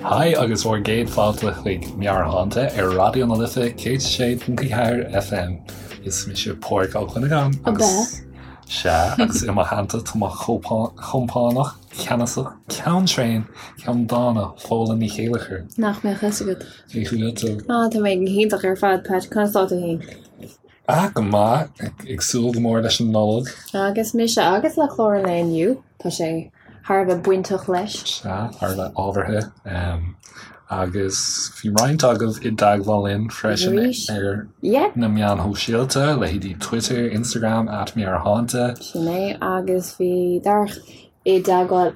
Haigh agus bhur gcéad fáilte chuig Meabhairshláinte ar Raidió na Life 106.4 FM. Is mise Pádraig Ó Cuinneagáin agus Sea, agus i mo theannta tá mo chompánach ceannasach, ceann tréan, ceann dána, Fódhla Ní Chéilleachair. Nach mbeadh fhios agat. Cén chaoi a bhfuil tú? Ah, tá mé go hiontach ar fad, Pat. Conas tá tú féin? Ah, go maith. Ag súil go mór leis an Nollaig. Agus mise agus le clár an lae inniu, tá sé thar a bheith bainteach leis. Sea, thar a bheith ábhartha. Agus bhí roinnt agaibh i dteagmháil linn freisin ar na meáin shóisialta, leithéidí Twitter, Instagram, @meabhairshláinte. Sin é, agus bhí Darach i dteagmháil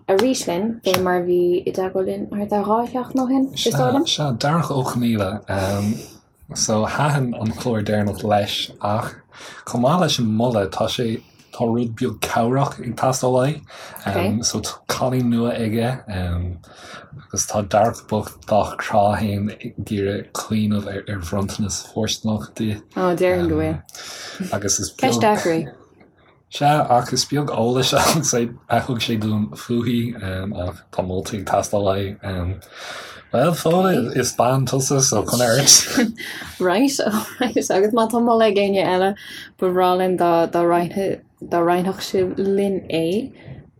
arís linn, fé mar a bhí i dteagmháil linn thart ar 2 sheachtain ó shin, is dóigh liom. Sea, Darach Ó Conaola. So, thaitin an clár deireanach leis ach chomh maith leis an moladh, tá sé, tá rud beag cabhrach ag teastáil uaidh. Okay. So tá cailín nua aige agus tá Darach bocht dá chrá féin ag iarraidh cuimhneamh ar, ar bhronntanas fóirsteanach di. Ó, déarfainn go bhfuil. Agus is beag... Ceist deacair í. Sea, ach is beag eolais a thug sé dúinn fúithi, ach tá moltaí ag teastáil uaidh. Bhuel, Fódhla, is bean tusa, so coinnigh ort. Right, alright, agus má tá moladh ag éinne eile, ba bhreá linn dá roinnfeadh sibh linn é.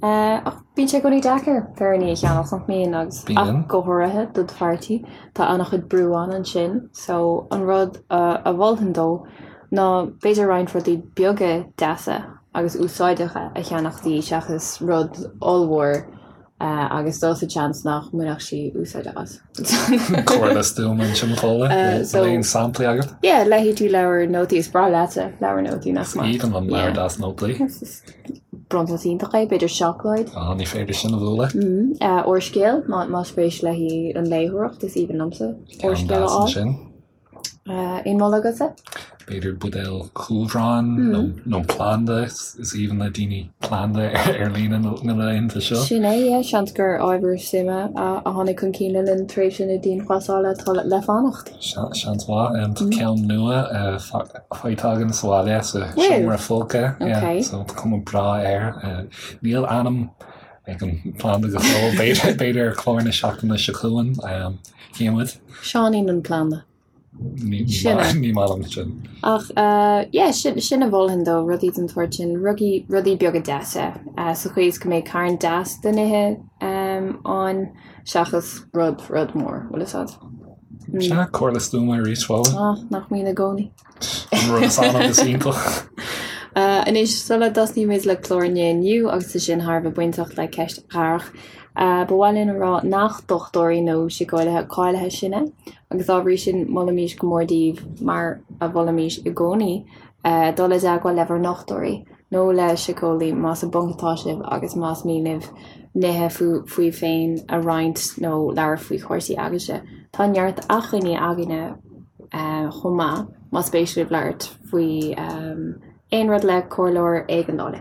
Ach bíonn sé i gcónaí deacair féiríní a cheannach, nach mbíonn, agus ach go háirithe do do pháirtí, tá an-chuid brú ann ansin, so an rud a mholfainn dó, ná b'fhéidir roinnt rudaí beaga deasa agus úsáideacha a cheannach di seachas rud ollmhór agus dul sa tseans nach mbainfeadh sí úsáid as. Comhairle stuama ansin Fódhla, So aon samplaí agat? Yeah, leithéidí leabhar nótaí, is breá leatsa leabhar nótaí nach maith? Is aoibhinn liom leabhar deas nótaí. Bronntanas iontach é, b'fhéidir seacláid. Á, ní féidir sin a bhualadh. Úrscéal, má spéis léi an léitheoireacht, is aoibhinn liomsa úrscéal a fháil. Ansin. Aon mholadh agatsa? B'fhéidir buidéal cumhráin nó planda, is aoibhinn le daoine planda ar líne na laethanta seo. Sin é, yeah, seans gur ábhar suime a tháinig chun cinn le linn tréimhse na dianghlasála atá le fanacht. Seans mhaith. Tá ceann nua faighte againn sa bhaile sa seomra folctha, yeah, so tá cuma breá air. Níl ainm ag an bplanda go fóill, b'fhéidir ar chlár na seachtaine seo chugainn. Cífimid. Seáinín an planda. Ní Sin é. ní maith liom sin. Ach yeah, sin, sin a mholfainn dó, rudaí den tsórt sin, rugaí, rudaí beaga deasa, sa chaoi is go mbeidh carn deas de nithe ann seachas rud, rud mór, bhfuil fhios a'd. Sea, comhairle stuama arís, Fódhla. Ah, nach mbíonn i gcónaí. An rud is annamh is iontach. Anois, sula dtosnaímid le clár an lae inniu, agus é sin thar a bheith bainteach le ceist Dharach, ba mhaith linn a rá nach dochtúirí nó síceolaithe cáilithe sinne, agus dá bhrí sin molaimís go mór daoibh, mar a mholaimís i gcónaí, dul i dteagmháil le bhur ndochtúirí nó le síceolaí más i bponc atá sibh agus más mian libh nithe fúibh féin a roinnt nó labhairt faoi chúrsaí agaibhse. Tá neart acmhainní againne chomh maith, más spéis libh labhairt faoi aon rud le comhairleoir éigeandála.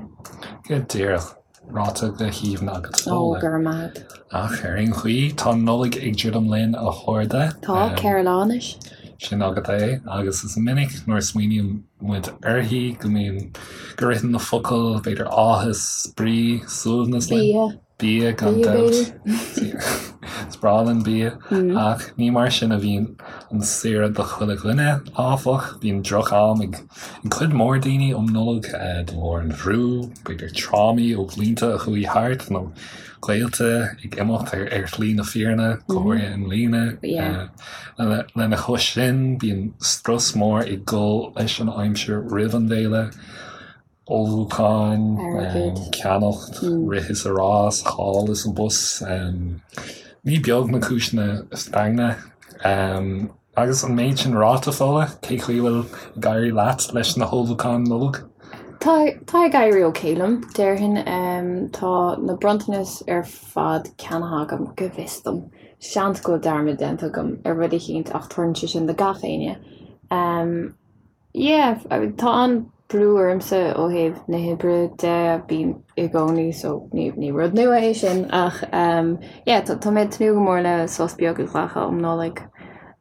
Go díreach. Ráite go haoibhinn agat, Ó, go raibh maith agat. Ach ar aon chaoi, tá an Nollaig ag druidim linn, a chairde. Tá, 4 lá anois. Sin agat é, agus is minic nuair a smaoiníonn muid uirthi go mbíonn, go ritheann na focail, b'fhéidir áthas, spraoi, suaimhneas linn. Bia. Bia, gan dabht. Is breá linn bia. Ach ní mar sin a bhíonn an saoire do chuile dhuine, áfach. Bíonn droch-am ag cuid mhór daoine um Nollaig de bharr an bhrú, b'fhéidir trámaí ó bhlianta a chuaigh thart nó gaolta ag imeacht ar shlí na fírinne, go háirithe i mbliana. Lena chois sin, bíonn strus mór ag dul leis an aimsir roimh an bhféile. ullmhúcháin, ceannacht, rith is a rás, thall is abhus. Ní beag na cúiseanna foighne. Agus an méid sin ráite, Fódhla, cé chaoi a bhfuil ag éirí leat leis na hullmhúcháin Nollag? Tá, tá ag éirí ok liom, déarfainn. Tá na bronntanais ar fad ceannaithe agam, go bhfios dom. Seans go bhfuil dearmad déanta agam ar rud eicínt ach tarlaíonn sé sin do gach éinne. Yeah, tá an-brú ormsa ó thaobh na hoibre de, bíonn i gcónaí so ní ní rud nua é sin ach yeah tá tá mé ag tnúth go mór le sos beag a ghlacadh um Nollaig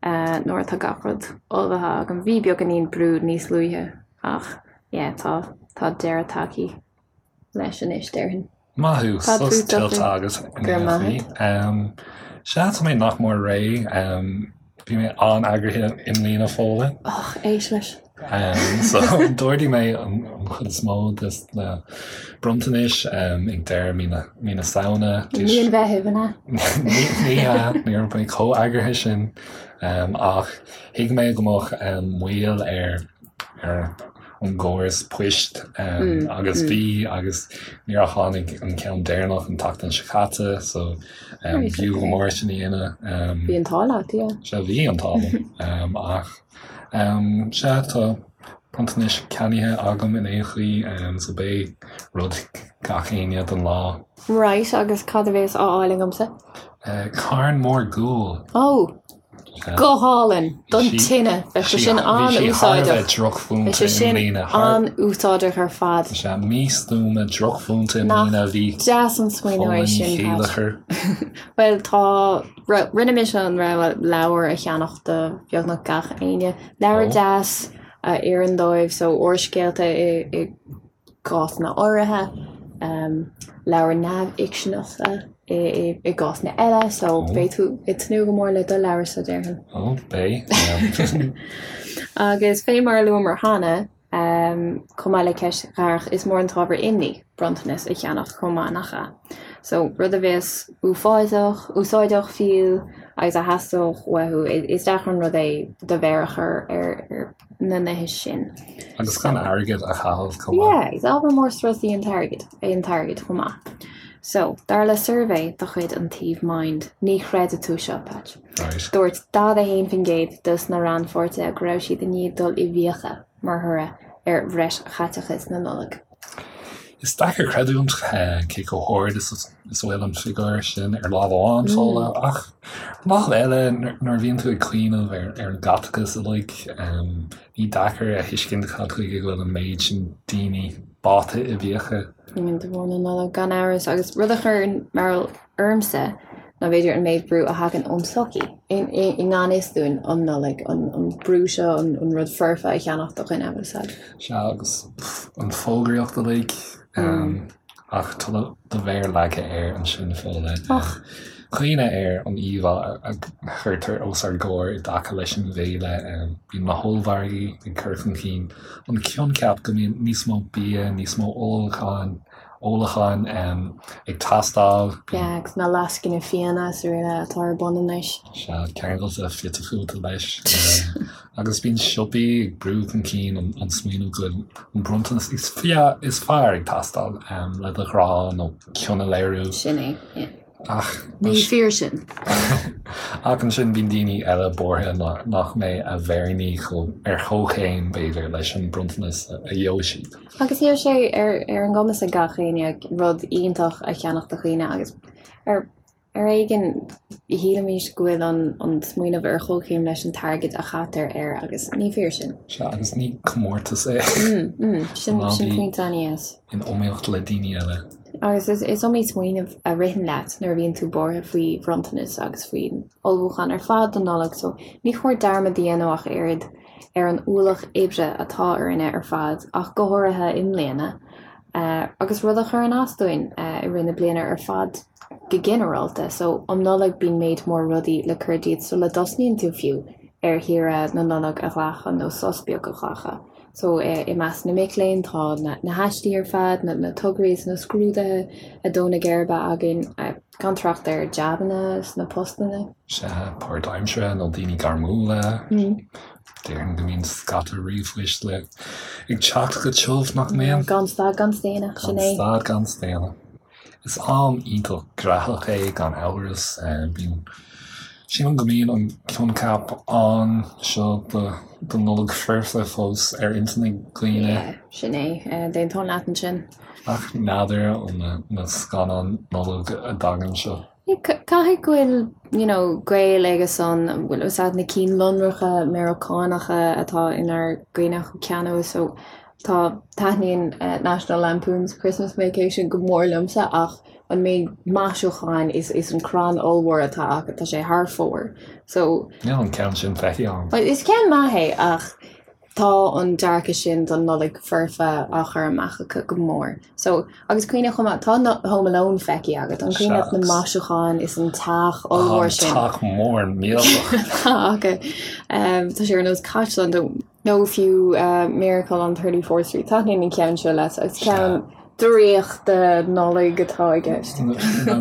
nuair atá gach rud ullmhaithe agam. Bhí beagáinín brú níos luaithe ach yeah tá tá deireadh tagtha leis anois déarfainn. Maith thú, sos tuillte agat in aon chaoi. Sea, tá mé nach mór réidh. Bhí mé an-eagraithe i mbliana, Fódhla. Och, éist leis. So, d'ordaigh mé an chuid is mó de na bronntanais ag deireadh mí na Samhna. Mí an Mheithimh, an ea? Ní hea, ní raibh mé chomh eagraithe sin. Ach thuig mé go mbeadh moill ar ar an gcóras poist agus bhí agus níor tháinig an ceann deireanach an tseachtain seo caite so b'fhiú go mór sin a dhéanamh. Bhí an t-ádh leat, yeah. Sea, bhí an t-ádh liom ach sea tá bronntanais ceannaithe agam in aon chaoi so beidh rud ag gach éinne don lá. Right, agus cad a bhéas á fháil agamsa? Carn mór guail. Oh! Go hálainn! Don tine! Bheadh sé sin an-úsáideach. Bheadh sé sin an-úsáideach ar fad. Sea, místuama, drochmhúinte i mbliana a bhí. Nach deas an smaoineamh é sin, Pat. Bhuel, tá, rinne mise an rogha leabhar a cheannach do bheagnach gach éinne. Leabhar deas a oireann dóibh, so úrscéalta i gcásanna áirithe, leabhair neamhfhicseanacha i gcásanna eile, so beidh tú ag tnúth go mór le do leabharsa, déarfainn. Ó, beidh. Agus fé mar a luamar cheana, chomh maith le ceist Dharach, is mór an t-ábhar imní bronntanas a cheannach chomh maith, nach ea? So, rud a bheas uafásach, úsáideach fiú, agus a theastódh uathu, is deacair an rud é do mhéar a chur ar na nithe sin. Agus gan airgead a chaitheamh chomh maith. Yeah, is ábhar mór strus í an t-airgead, é an t-airgead chomh maith. So, dar le suirbhé de chuid an tsuímh Mind, ní chreidfidh tú seo, Patch. Right. Dúirt 41% dos na rannpháirtithe go raibh siad i ndiaidh dul i bhfiacha mar thoradh ar bhreis chaiteachais na Nollag. Is deacair creidiúint cé chomh hard is a bhfuil an figiúr sin ar lámh amháin, Fódhla, ach ar an lámh eile, nuair a bhíonn tú ag cuimhneamh ar an gcaiteachas uilig, ní deacair a thuiscint cad chuige go bhfuil an méid sin daoine báite i bhfiacha. De bharr na Nollag, gan amhras, agus rud a chuireann mearbhall ormsa ná b'fhéidir an méid brú a thagann ón tsochaí i ngan fhios dúinn um Nollaig, an brú seo an rud foirfe a cheannach do dhuine, bhfuil a fhios agat. Sea, agus an fógraíocht uilig, ach tá do mhéar leagtha air ansin, Fódhla. Cuimhnigh ar an íomhá a chuirtear os ár gcomhair i dtaca leis an bhféile. Bíonn na hollmhargaí ag cur chun cinn an coincheap go mbíonn níos mó bia, níos mó ólacháin, ólacháin ag teastáil. Yeah, agus na lascaine fíona is araile atá ar bun anois. Sea, ceangailte fite fuaite leis. Agus bíonn siopaí ag brú chun cinn an smaoineamh go bhfuil an bronntanas is fearr ag teastáil le do ghrá nó cion a léiriú. Sin é, yeah. Ach. Ní fíor sin. Ach ansin bíonn daoine eile buartha nach mbeidh a bhféiríní ar chomhchéim, b'fhéidir, leis an bronntanas a gheobhaidh siad. Agus níl sé ar ar an gcumas ag gach éinne rud iontach a cheannach do dhaoine agus ar ar éigean shílimís go bhfuil an an smaoineamh ar chomhchéim leis an t-airgead a chaitear air agus ní fíor sin. Sea, agus ní comórtas é. Sin sin pointe an-dheas. In iomaíocht le daoine eile. Agus is is iomaí smaoineamh a ritheann leat nuair a bhíonn tú buartha faoi bhronntanas agus faoin ullmhúchán ar fad don Nollaig so ní chóir dearmad a dhéanamh ach oiread ar an ualach oibre atá orainne ar fad, ach go háirithe i mbliana, agus rud a chuireann as dúinn i rith na bliana ar fad go ginearálta. So, um Nollaig bíonn méid mór rudaí le cur díot sula dtosnaíonn tú fiú ar shaoire na Nollag a ghlacadh nó sos beag a ghlacadh. So, i measc na mic léinn tá na haistí ar fad, na tograí is na scrúduithe ag dó na geirbe againn, gan trácht ar jabanna is na postanna. Sea, páirtaimseartha nó daoine gairmiúla. Déarfainn go mbíonn scata ríomhphoist le ag teacht go tiubh, nach mbíonn? Gan stad gan staonadh, sin é. Gan stad gan staonadh. Is am iontach graitheach é gan amhras. Bíonn, sílim go mbíonn an coincheap ann seo do Nollaig foirfe fós ar intinn ag daoine. Yeah, sin é. D'aontóinn leat ansin. Ach n'fheadar ó na scannáin Nollag a dtagann seo. Caithfidh go bhfuil you know gaol aige san, bhfuil fhios agat na cinn lonracha Meiriceánacha atá inár gcuimhne cheana so tá, taitníonn National Lampoon's Christmas Vacation go mór liomsa ach an méid maisiúcháin is is an crann ollmhór atá acu, tá sé thar fóir so. Níl an ceann sin feicthe agam. Is ceann maith é ach. Tá an dearcadh sin don Nollaig foirfe á chur amach acu go mór. So, agus cuimhnigh chomh maith, tá Home Alone feicthe agat, an cuimhin leat na maisiúcháin is an teach ollmhór sin? An teach mór millteach. Tá acu. Tá sé ar nós caisleán nó fiú Miracle on 34th Street. Taitníonn an ceann seo leat agus ceann draíochta Nollag atá i gceist.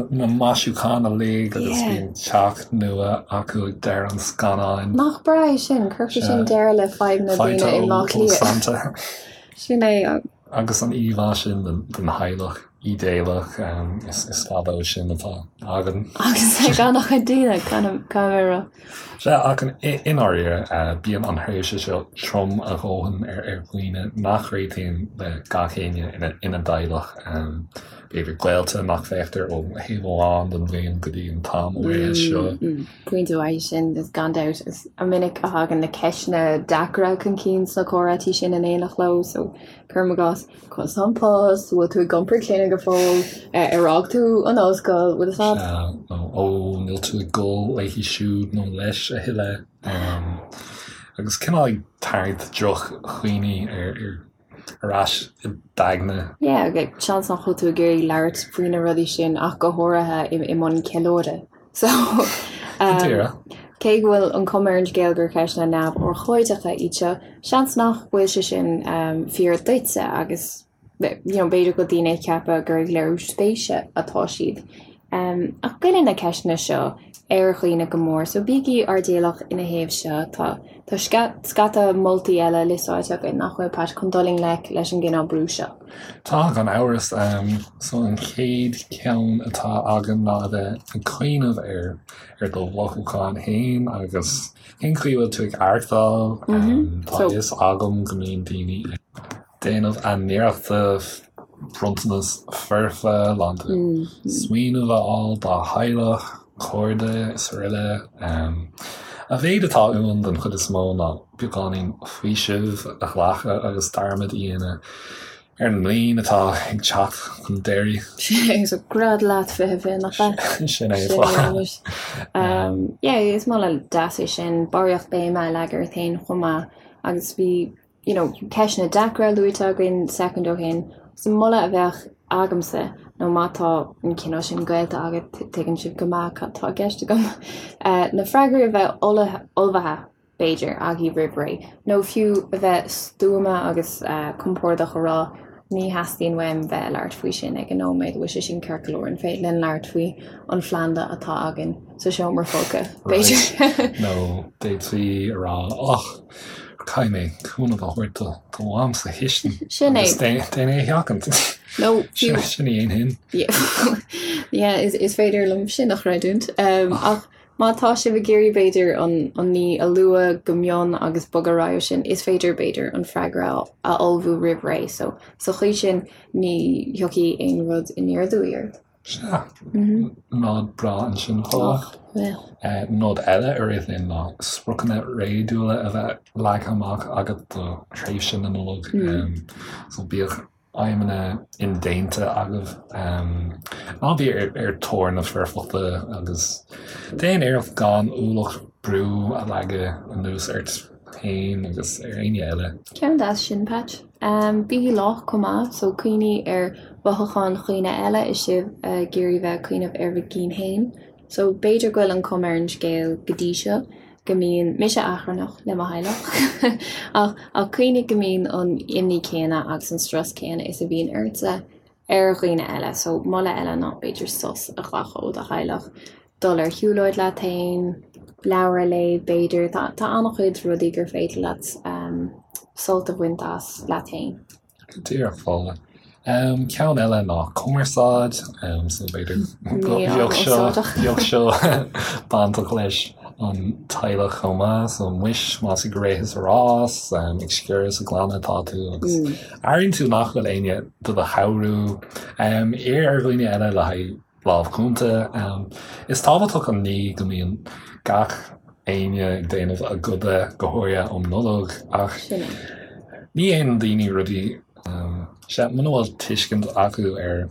Na maisiúcháin uilig agus bíonn teach nua acu ag deireadh an scannáin. Nach breá é sin? Cuirfidh sin deireadh le fadhbanna daoine i mBaile Átha Cliath. Sin é. Agus an íomhá sin den theaghlach ídéalach, is fada ó sin atá againn. Agus ag an-chuid daoine, caithfidh mé a rá. Sea, ach i ndáiríre, bíonn an thréimhse seo trom a dhóthain ar dhaoine nach réitíonn le gach éinne ina dteaghlach. B'fhéidir gaolta nach bhfeictear ó thaobh amháin den bhliain go dtí an t-am áirithe seo. Pointe mhaith sin, gan dabht. Is minic a thagann na ceisteanna deacra chun cinn sna comhráití sin in éineacht leo, so cuirim i gcás, Conas tá an post, bhfuil tú ag iompar clainne go fóill, ar fhág tú an ollscoil, bhfuil fhios agat? Sea, nó ó, níl tú ag gol léi siúd nó leis a thuilleadh. Agus cineál ag tarraingt droch-chuimhní ar ais i d'aigne. Yeah, seans nach bhfuil tú ag iarraidh labhairt faoi na rudaí sin ach go háirithe i mbun ceiliúradh. So, cé go bhfuil an chuma ar an scéal gur ceisteanna neamhurchóideacha iad seo, seans nach bhfuil sé sin fíor duitse agus you know b'fhéidir go bhfuil daoine ag ceapadh gur ag léiriú spéise atá siad. Ach goilleann na ceisteanna seo ar dhaoine go mór, so bígí airdeallach ina thaobh seo. Tá tá scata moltaí eile liostáilte againn nach bhfuil, Pat, chun dul i ngleic leis an gcineál brú seo. Tá, gan amhras. So an chéad cheann atá againn ná a bheith ag cuimhneamh ar ar do mhothúcháin féin agus cén chaoi a bhfuil tú ag aireachtáil. Tá a fhios agam go mbíonn daoine ag déanamh a n-iarrachta bronntanas foirfe lán de smaoineamh a fháil dá theaghlach, cairde is araile. A mhéid atá uainn den chuid is mó ná beagáinín faoisimh a ghlacadh agus dearmad a dhéanamh ar an mbliain atá ag teacht chun deiridh. Sin é, so gread leat 2020, nach ea? Sin é, fáth. Yeah, is moladh deas é sin, barraíocht béime a leagadh ort féin chomh maith agus bhí, you know, ceisteanna deacra luaite againn soicind ó shin, so moladh a bheadh agamsa nó má tá an cineál sin gaolta agat, tuigeann sibh go maith cad tá i gceist agam, na freagraí a bheith ullmhaithe b'fhéidir, agaibh roimh ré, nó fiú a bheith stuama agus compordach a rá, ní theastaíonn uaim bheith ag labhairt faoi sin ag an nóiméad, bhfuil sé sin ceart go leor, an féidir linn labhairt faoi an phlanda atá againn sa seomra folctha, b'fhéidir. Nó d'fhéadfaí a rá, och, caithfidh mé cúnamh a thabhairt do do mham sa chistin. Sin é. Agus déan é a sheachaint. Nó fiú. Sin a dhéanfainn. Yeah, is féidir liom sin a chreidiúint. Ach Má tá sibh ag iarraidh, b'fhéidir, an ní a lua go mion agus bogadh ar aghaidh ó sin, is féidir, b'fhéidir, an freagra a ullmhú roimh ré. So, sa chaoi sin, ní thiocfaidh aon rud aniar aduaidh ort. Sea. Nod breá ansin, Paula. Nod eile a rith linn ná spriocanna réadúla a bheith leagtha amach agat do thréimhse na Nollag. So bíodh aidhmeanna indéanta agaibh. Ná bí ar thóir na foirfeachta agus déan iarracht gan ualach brú a leagadh anuas ort féin agus ar éinne eile. Ceann deas sin, Patch. Bígí lách chomh maith, so cuimhnigh ar mhothúcháin dhaoine eile is sibh ag iarraidh bheith ag cuimhneamh ar bhur gcinn féin. So b'fhéidir go bhfuil an chuma ar an scéal go dtí seo go mbíonn mise achrannach le mo theaghlach ach ach cuimhnigh go mbíonn an imní céanna agus an strus céanna is a bhíonn ortsa ar dhaoine eile. So moladh eile ná b'fhéidir sos a ghlacadh ó do theaghlach, dul ar shiúlóid leat féin, leabhar a léamh b'fhéidir. Tá tá an-chuid rudaí gur féidir leat sult a bhaint as leat féin. Go díreach, Fódhla. Ceann eile ná cumarsáid, so b'fhéidir go mbeadh seo bainteach leis an teaghlach chomh maith, so muis más ag rith is ag rás, ag sciorradh is ag glanadh atá tú agus airíonn tú nach bhfuil éinne do do chabhrú, iarr ar dhaoine eile le haghaidh lámh chúnta. Is tábhachtach an ní go mbíonn gach éinne ag déanamh a gcoda, go háirithe um Nollaig, ach ní dhéanann daoine rudaí sea, muna bhfuil tuiscint acu ar.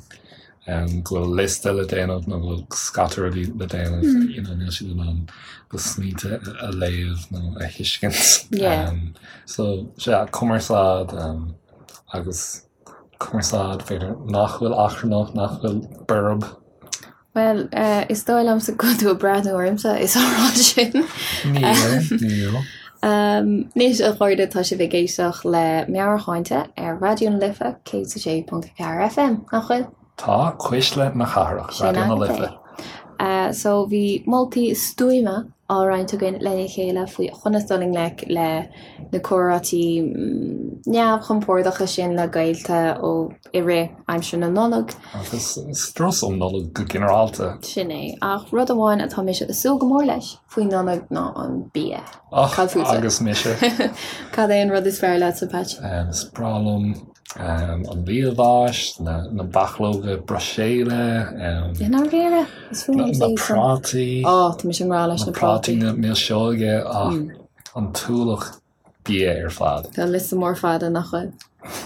go bhfuil liosta le déanamh nó go bhfuil scata rudaí le déanamh, you know, níl siad in ann do smaointe a léamh nó a thuiscint. Yeah. So, sea, cumarsáid agus cumarsáid, b'fhéidir, nach bhfuil achrannach, nach bhfuil borb. Bhuel, is dóigh liomsa go bhfuil tú ag breathnú ormsa is á rá sin. Níl, níl. Anois, a chairde, tá sibh ag éisteacht le Meabhairshláinte ar Raidió na Life 106.4 FM, nach bhfuil? Tá, Cuisle na Cathrach, Raidió na Life. So bhí moltaí stuama á roinnt againn lena chéile faoi chonas dul i ngleic le na comhráití neamhchompordacha sin le gaolta ó i rith aimsir na Nollag. Agus strus um Nollaig go ginearálta. Sin é. Ach rud amháin atá mise ag súil go mór leis faoi Nollaig ná an bia. Och, Cad fútsa? agus mise. Cad é an rud is fearr leatsa, Patch? Is breá liom an liamhás, na bachlóga Bruiséile, I ndáiríre? Is fuath liomsa na iad san. prátaí. Ó, tá mise i ngrá leis Na na prátaí. prátaí, na milseoga, ach an t-ualach bia ar fad. Tá liosta mór fada nach bhfuil?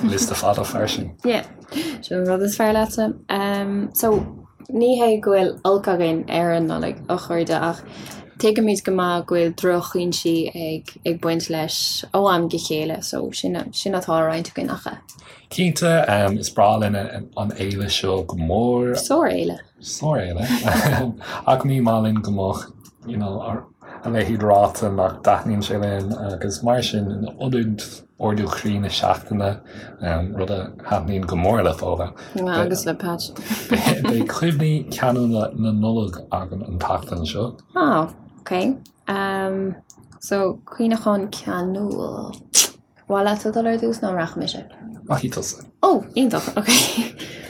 Liosta fada fairsing. Yeah. Sin an rud is fearr leatsa. So, ní hé go bhfuil olc againn ar an Nollaig, a chairde, ach tuigimid go maith go bhfuil drochfhoinsí ag ag baint leis ó am go chéile, so sin sin atá á roinnt againn ach. Cinnte, is breá linn an fhéile seo go mór. Sár-fhéile. Sár-fhéile. Ach ní maith linn go mbeadh, you know, a leithéid ráite nach dtaitníonn sé linn agus mar sin in ionad ardú croí na seachtaine, rud a thaitníonn go mór le Fódhla. Agus le Patch. Beidh cuimhní ceanúla na Nollag againn an tseachtain seo. Ah, ok. So, cuimhneachán ceanúil. Mhaith leatsa dul ar dtús nó an rachaidh mise? Rachaidh tusa. Ó, iontach, ok.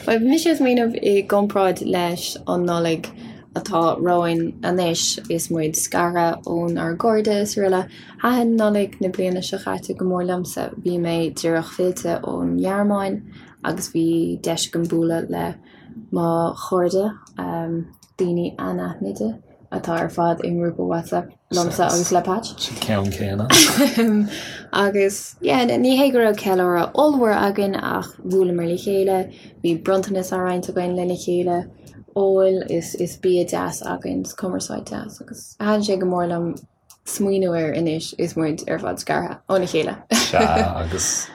Bhuel, bhí mise ag smaoineamh i gcomparáid leis an Nollaig atá romhainn anois is muid scartha ónár gcairde is araile. Thaitin Nollaig na bliana seo caite go mór liomsa. Bhí mé díreach fillte ón nGearmáin agus bhí deis agam bualadh le mo chairde, daoine anaithnide. atá ar fad i ngrúpa WhatsApp liomsa agus le Patch. Sa cheann céanna. Agus yeah, ní hé go raibh ceiliúradh ollmhór againn ach bhuaileamar le chéile, bhí bronntanas á roinnt againn lena chéile, ól is is bia deas againn, is cumarsáid deas agus thaitin sé go mór liom smaoineamh air anois is muid ar fad scartha óna chéile. Sea, agus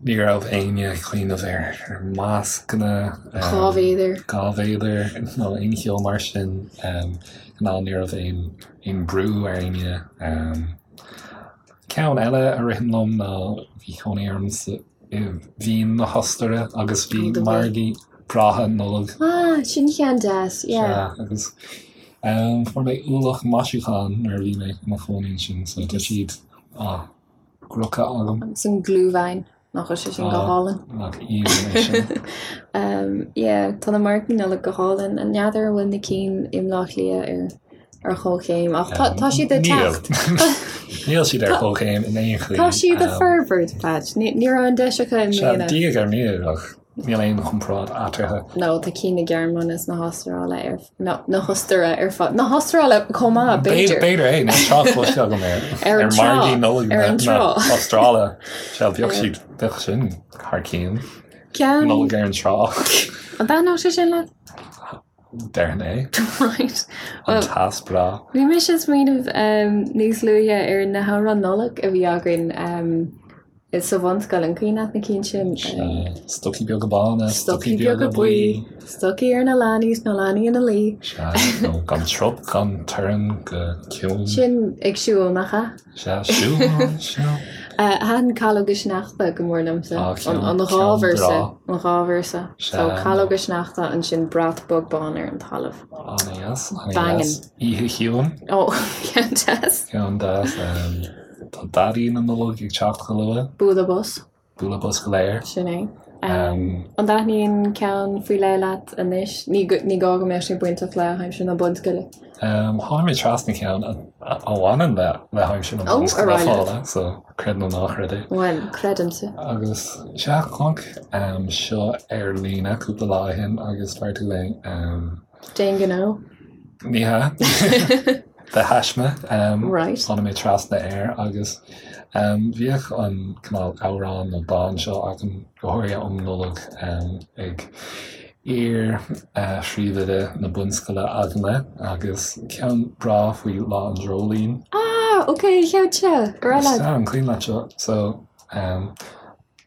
ní raibh éinne ag cuimhneamh ar mascanna. 2 mhéadar. 2 mhéadar nó aon cheo mar sin. Ná ní raibh aon brú ar éinne. Ceann eile a ritheann liom ná bhí cónaí orm sa i Vín na hOstaire agus bhí margaí breátha Nollag. Ah, sin ceann deas, yeah. Sea, agus fuair mé ualach maisiúchán nuair a bhí mé i mo chónaí ansin, so tá siad á gcrochadh agam. Agus an Glühwein, nach bhfuil sé sin go hálainn? Nach aoibhinn é sin. Yeah, tá na margaí Nollag go hálainn. N'fheadar an bhfuil na cinn i mBleá Cliath ar ar chomhchéim ach tá siad ag teacht. Níl siad ar chomhchéim in aon chaoi. Tá siad ag forbairt, Patch. Ní raibh an deis acu i mbliana. Diaidh ar ndiaidh ach níl aon chomparáid eatarthu. No, tá cinn na Gearmáine is na hAstráile ar no, na hOstaire ar fad. Na hAstráile chomh maith, b'fhéidir. B'fhéidir é, níl trácht cloiste agam ar ar margaí Nollag na hAstráile. Sea, bheadh siad, bheadh sin thar cionn. Nollaig ar an trá. An dtaitneodh sé sin leat? Déarfainn é. Right. An teas breá. Bhí mise ag smaoineamh níos luaithe ar na hamhráin Nollag a bhí againn sa bhunscoil, an cuimhin leat na cinn sin? Sea. Stocaí beaga bána, stocaí beaga buí, stocaí ar na leanaí is na leanaí ina luí. Sea, nó gan trup, gan torann go ciúin. Sin ag siúl, nach ea? Sea, siúl, siúl. Thaitin Calóga Sneachta go mór liomsa. An dhá véarsa, an dhá véarsa. So Calóga Sneachta, ansin brat bog bán ar an talamh. An-deas, an-deas. Oíche Chiúin. Ó, ceann deas. Ceann deas. Tá Daidí na Nollag ag teacht go luath. Bualadh bos. Bualadh bos go léir. Sin é. An dtaitníonn ceann faoi leith leat anois? Ní ní gá go mbeadh sé bainteach le haimsir na bunscoile. Tháinig mé trasna ceann a bhaineann le le haimsir na bunscoile Fódhla, so creid nó ná creid é. Bhuel, creidimse. Agus sea, chonac seo ar líne cúpla lá ó shin agus fuair tú é. Déan gnó. Ní hea. De thaisme. Right. Tháinig mé trasna air agus bhíodh an cineál amhrán nó dán seo againn, go háirithe um Nollaig, ag. Iar-phríomhoide na bunscoile againne agus ceann breá faoi Lá an Dreoilín. Ah, ok, an ceann seo, go raibh leat. Sea, an cuimhin leat seo? So, an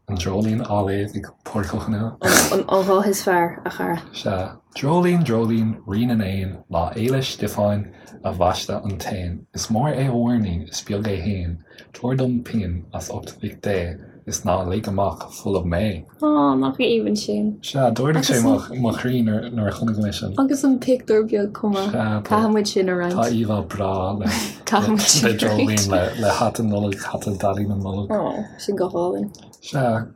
Dreoilín á léamh ag Pádraic Ó Conghaile. An guth is fearr, a chara. Sea. Dreoilín, dreoilín, rí na n-éan, Lá Fhéile Stiofáin a bhaisteadh an t-éan. Is mór é a mhuirnín, is beag é fhéin, Tabhair dom pingin as ucht Mhic Dé is ná lig amach folamh mé. Á, nach aoibhinn sin. Sea, d'ardaigh sé mo chroí nuair a chonaic mé sin. Agus an pictiúr beag chomh maith. Sea, Caithfidh muid sin a roinnt. Tá íomhá breá le Caithfidh muid sin le a dreoilín roinnt. le hata Nollag, hata Daidí na Nollag. Á, sin go hálainn. Sea,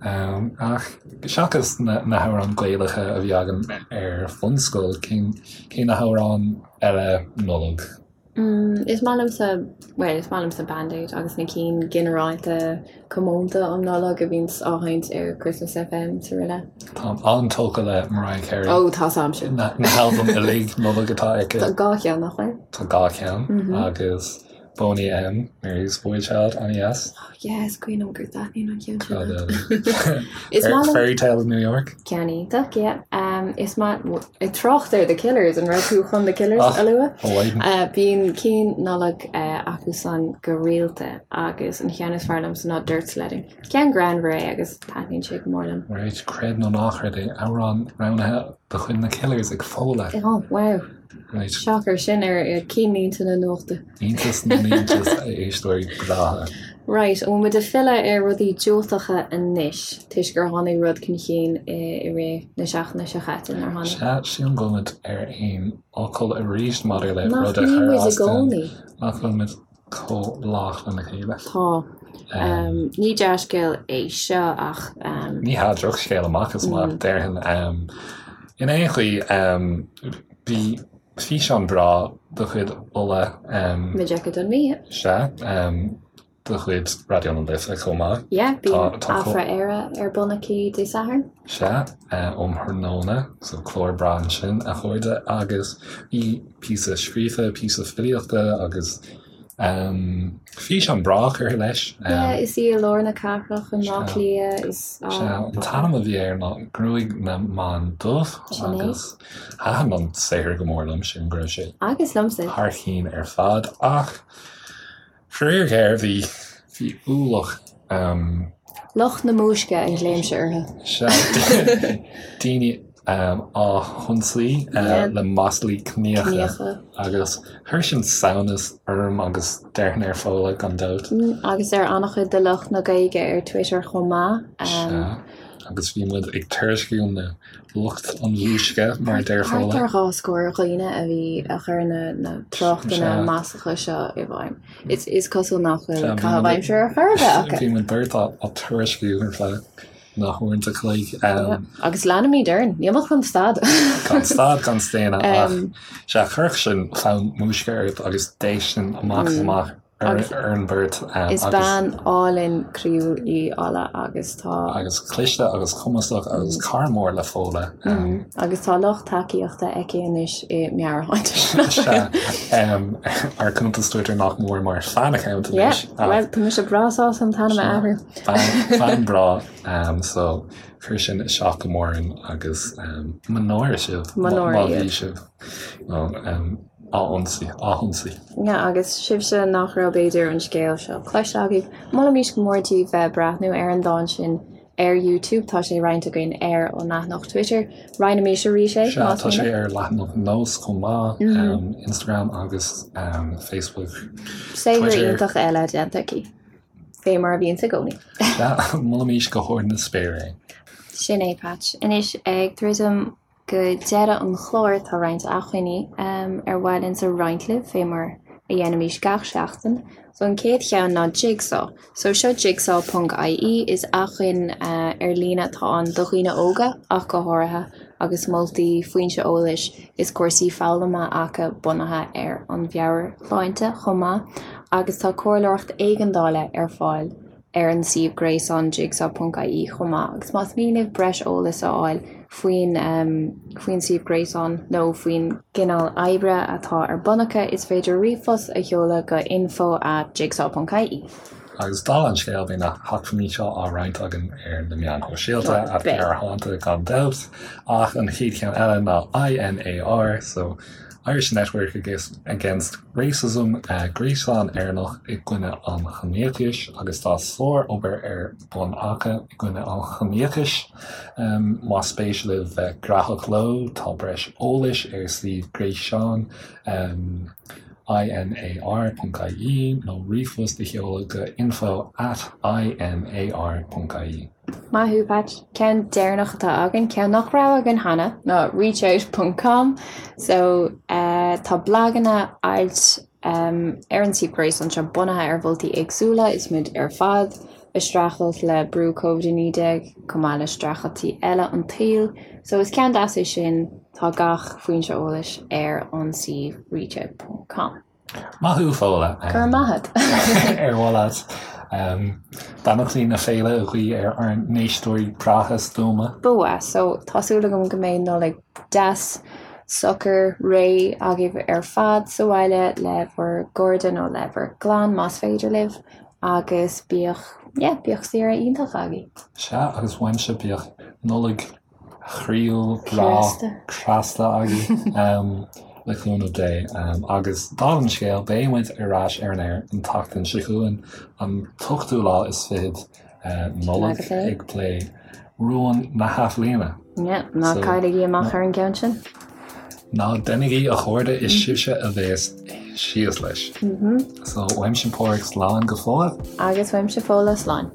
ach seachas na hamhráin Gaelacha a bhí againn ar bhunscoil, cén cé na hamhráin eile Nollag? Is maith liomsa, bhuel, is maith liomsa Band Aid agus na cinn ginearálta comónta um Nollaig a bhíonns á sheinnt ar Christmas FM is araile. Táim an-tógtha le Mariah Carey. Ó, tá 's a'mse. Na halbaim uilig Nollag atá aici. Tá 2 cheann, nach bhfuil? Tá 2 cheann agus Boney M, Mary's Boy Child, an-dheas. Oh yeah, is cuimhin liom gur taitníonn an ceann sin leat. Is maith liom. Fairy Tale of New York. Ceann iontach, yeah. Is maith, ag trácht ar The Killers, an raibh tú chun The Killers a lua? Oh, Bíonn cinn Nollag acusan go rialta agus an cheann is fearr liomsa ná Dirt Sledding. Ceann greannmhar é agus taitníonn sé go mór liom. Right, creid nó ná creid é, amhrán roghnaithe de chuid na Killers ag Fódhla. Oh, wow. Right. Shocker, sin ar cinnlínte na nuachta. Iontas na n-iontas a éisteoirí breátha. Right, an bhfuil muid ag filleadh ar rudaí diúltacha anois, toisc gur tháinig rud chun chinn i rith na seachtaine seo chaite, nár tháinig? Sea, sílim go bhfuil muid ar aon fhocal arís maidir le Nach rud a mbíonn chuir muid i as dúinn. gcónaí? Nach bhfuil muid chomh lách lena chéile. Tá. Ní dea-scéal é seo ach. Ní hea, drochscéal amach is amach, déarfainn. In aon chaoi, bhí físeán breá de chuid Ola. Majekodunmi. Sea, de chuid Raidió na Life chomh maith. Yeah, bíonn Afra Éire ar bun aici Dé Sathairn. Sea, um thráthnóna, so clár breá ansin, a chairde, agus bhí píosa scríofa, píosa filíochta agus. Físeán breá curtha leis. Yeah, is í i lár na cathrach i mBleá Cliath is. Sea, an t-ainm a bhí air ná Gruaig na mBan Dubh agus thaitin an saothar go mór liom, sílim go raibh sé Agus liomsa. thar cinn ar fad ach faraor géar bhí bhí ualach Lucht na múisce a ghlaoimse orthu. Sea, daoine á hionsaí le maslaí ciníocha agus chuir sin samhnas orm agus déarfainn ar Fódhla gan dabht. Agus ar an-chuid de lucht na Gaeilge ar Twitter chomh maith. Sea, agus bhí muid ag tuairisciú na lucht an mhúisce, mar a deir Thart Fódhla. ar 2 scór dhaoine a bhí a chuir na tráchtanna maslacha seo i bhfeidhm. Is cosúil nach bhfuil caitheamh aimsire ar chor ar bith acu. Bhí muid beirt á tuairisciú ar feadh na huaireanta chloig. Agus leanfaimid orainn. Níl muid chun stad. Gan stad gan staonadh ach sea, chuirfeadh sin fonn múisce ort agus déistin amach is amach ar an mbeirt. Is bean álainn croíúil í Ola agus tá. Agus cliste agus cumasach agus cara mór le Fódhla. Agus tá lucht tacaíochta aici anois i meabhairshláinte. Sea, ár cuntas Twitter nach mór mar fan account anois. Yeah, bhuel, tá mise breá sásta an t-ainm a athrú. Bean breá, so chuir sin isteach go mór orainn agus mo náire sibh Mo náire má bhí iad. sibh á ionsaí, á hionsaí. Yeah, agus sibhse nach raibh b'fhéidir an scéal seo cloiste agaibh, molaimís go mór daoibh bheith ag breathnú ar an dán sin ar YouTube, tá sé roinnte againn ar an leathanach Twitter. Roinnimís arís é, Sea, más tá sé mian. ar leathanach Nós chomh maith, Instagram agus Facebook, Saothar Twitter. iontach eile déanta aici, fé mar a bhíonns i gcónaí. Sea, molaimís go hard na spéire é. Sin é, Patch. Anois, ag druidim Go deireadh an chláir tá roinnt acmhainní ar mhaith linnsa roinnt libh, fé mar a dhéanaimís gach seachtain. So an chéad cheann ná Jigsaw. So seo jigsaw ponc ie, is acmhainn ar líne atá ann do dhaoine óga ach go háirithe agus moltaí, foinse eolais is cúrsaí foghlama acu bunaithe ar an mheabhairshláinte chomh maith agus tá comhairleoireacht éigeandála ar fáil ar an suíomh gréasáin jigsaw ponc ie chomh maith agus más mian libh breis eolais a fháil faoin faoin suíomh gréasáin nó faoin gcineál oibre atá ar bun acu is féidir ríomhphost a sheoladh go info at jigsaw ponc ie. Agus dála an scéil, beidh na hacmhainní seo á roinnt againn ar na meáin shóisialta, at Gearrthánta gan dabht, ach an chéad cheann eile ná INAR, so Irish Network Against Racism, gréasán Éireannach i gcoinne an chiníochais, agus tá sár-obair ar bun acu i gcoinne an chiníochais. Más spéis libh bheith graitheach leo, tá breis eolais ar suíomh gréasáin. INAR.ie nó ríomhphost a sheoladh go info at INAR.ie. Maith thú, Patch. Ceann deireanach atá againn, ceann nach raibh againn cheana, ná reachout ponc com. So, tá blaganna, ailt ar an suíomh gréasáin seo bunaithe ar mholtaí éagsúla, is muid ar fad ag streachailt le brú Covid-19 chomh maith le streachailtí eile an tsaoil. So is ceann deas é sin, tá gach foinse eolais ar an suíomh reachout ponc com. Maith thú, Fódhla. Go raibh maith agat. Ar mhaith leat beannachtaí na féile a ghuí ar ár n-éisteoirí breátha stuama? Ba mhaith. So tá súil agam go mbeidh Nollaig deas, socair, réidh agaibh ar fad sa bhaile le bhur gcairde nó le bhur gclann más féidir libh. Agus bíodh, yeah, bíodh saoire iontach agaibh. Sea, agus uaimse bíodh Nollaig chroíúil, bhreá, chneasta agaibh, le cúnamh Dé. Agus dála an scéil, beidh muid ar ais ar an aer an tseachtain seo chugainn, an t-ochtú lá is fichead Nollaig, ag plé rúin na hathbhliana. Yeah, ná cailligí amach ar an gceann sin. Ná déanaigí a chairde, is sibhse a bheas síos leis. So, uaimse Páraic slán go fóill. Agus uaimse Fódhla slán.